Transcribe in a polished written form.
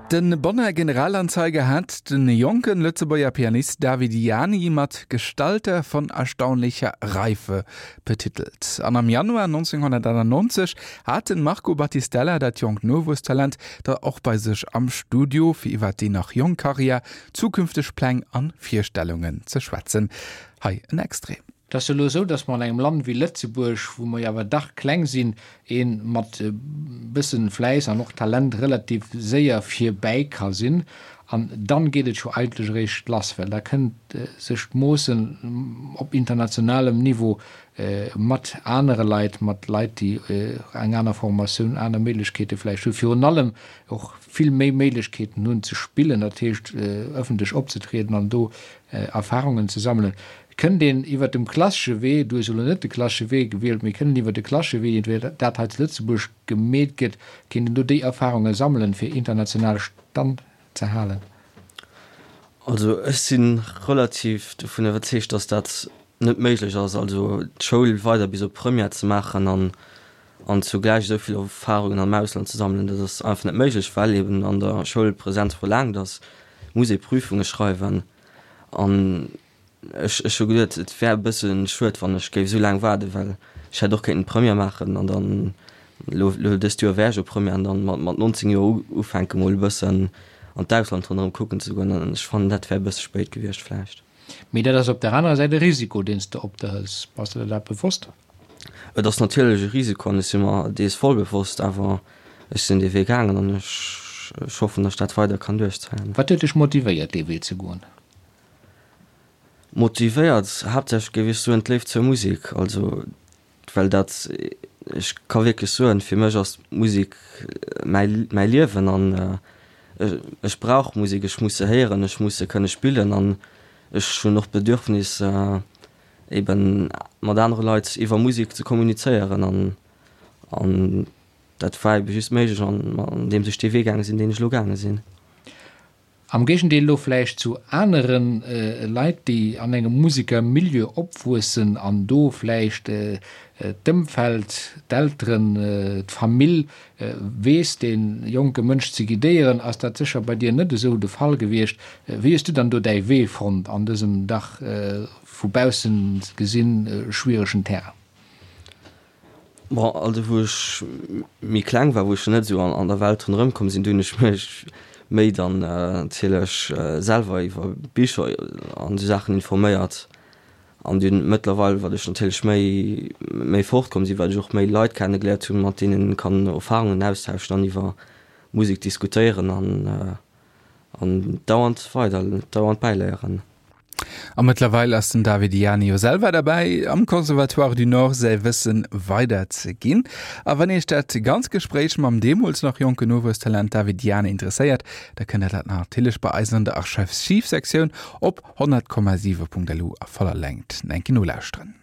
De Bonner Generalanzeiger hat de jonken Lëtzebuerger Pianist David Ianni mat Gestalter von erstaunlicher Reife betitelt. An am Januar 1991 hat den Marco Battistella dat jonkt Nowuesstalent da och bei sech am Studio, fir iwwer déi nach jonk Karriär, zukünfteg Pläng an Virstellungen ze schwätzen. Hei en Extrait. Et ass jo elo esou, datt mer an engem Land wéi Lëtzebuerg, wou mer jo awer dach kleng sinn, ee mat e bëssen Fläiss an och Talent relativ séier virbäi ka sinn. An dann geet et scho eigentlech eréischt lass, well da kënnt sech d'Moossen op internationalem Niveau mat anere Leit, mat Leit, déi eng aner Formatioun, aner Méiglechkeete vläicht hunn, virun allem och vill méi Méiglechkeeten hunn ze spillen, dat heescht ëffentlech opzetrieden an do Erfahrungen ze sammelen. Kënnt een iwwert dem klassesche Wee, du hues elo net de klassesche Wee gewielt, mee kënnt een iwwert de klassesche Wee, wéi dat hei zu Lëtzebuerg gemeet gëtt, kéint een do déi Erfahrunge sammelen, fir international Stand ze halen? Also ech si relativ dovun iwwerzeegt, datt dat net méiglech ass, also d'Schoul weider bis op Première ze maachen an an zugläich esou vill Erfahrungen am Ausland ze sammelen. Dat ass einfach net méiglech, well eben an der Schoul Präsenz verlaangt ass, muss ee Prüfunge schreiwen an Ech ech hu geduet, et wär e bësse schued, wann ech géif esou laang waarden, well ech hätt och kéinten Première maachen an dann elo elo dëst Joer wär ech op Première an dann mat mat 19 Joer ufänke mol e bëssen an d'Ausland ronderëm kucken ze goen an ech fannen, dat wär e bësse spéit gewiescht vläicht. Mee dat ass op der anerer Säit e Risiko, deen s de op der hëls. Bass de der dat bewosst? Et ass natierlech e Risiko an ech si mer dees voll bewosst, awer ech sinn dee Wee gaangen an ech ech hoffen, datt ech dat weider kann duerchzéien. Wat huet dech motivéiert, dee Wee ze goen? Motivéiert haaptsächlech géif ech soen d'Léift zur Musek, also well dat, ech ka wierklech soen, fir mech ass d'Musek mäi mäi Liewen an ech brauch Musek, ech muss se héieren, ech muss se kënne spillen an ech hunn och d'Bedürfnis eben mat anere Leit iwwer Musek ze kommunizéieren an an dat war ebe just méiglech an andeems ech dee Wee gaange sinn, deen ech elo gaange sinn. Am Géigendeel elo vläicht zu anere Leit, déi an engem Musekermilieu opwuessen an do vläicht d'Ëmfeld, d'Elteren, d'Famill weess, dee jonke Mënsch ze guidéieren, ass dat sécher bei dir net esou de Fall gewiescht. Wéi hues du dann do däi Wee fonnt an dësem dach vu baussen gesinn schwieregen Terrain? Bon, also wou ech méi kleng war, wou ech nach net esou an der Welt ronderëm komm sinn, do hunn ech mech méi dann natierlech selwer iwwer Bicher an esou Saachen informéiert. An dunn mëttlerweil, wat ech natierlech méi méi fort komm sinn, wat ech och méi Leit kenne geléiert hunn, mat deenen een kann Erfarungen austauschen an iwwer Musek diskutéieren an An dauernd weider, dauernd bäiléieren. A mëttlerweil ass den David Ianni jo selwer derbäi, am Conservatoire du Nord säi Wësse weider ze ginn. A wann Iech dat ganz Gespréich mam deemools nach jonken Nowuesstalent David Ianni interesséiert, da kënnt der dat natierlech bei eis an der Archiv-Sektioun op 100,7.lu a voller Längt enke nolauschteren.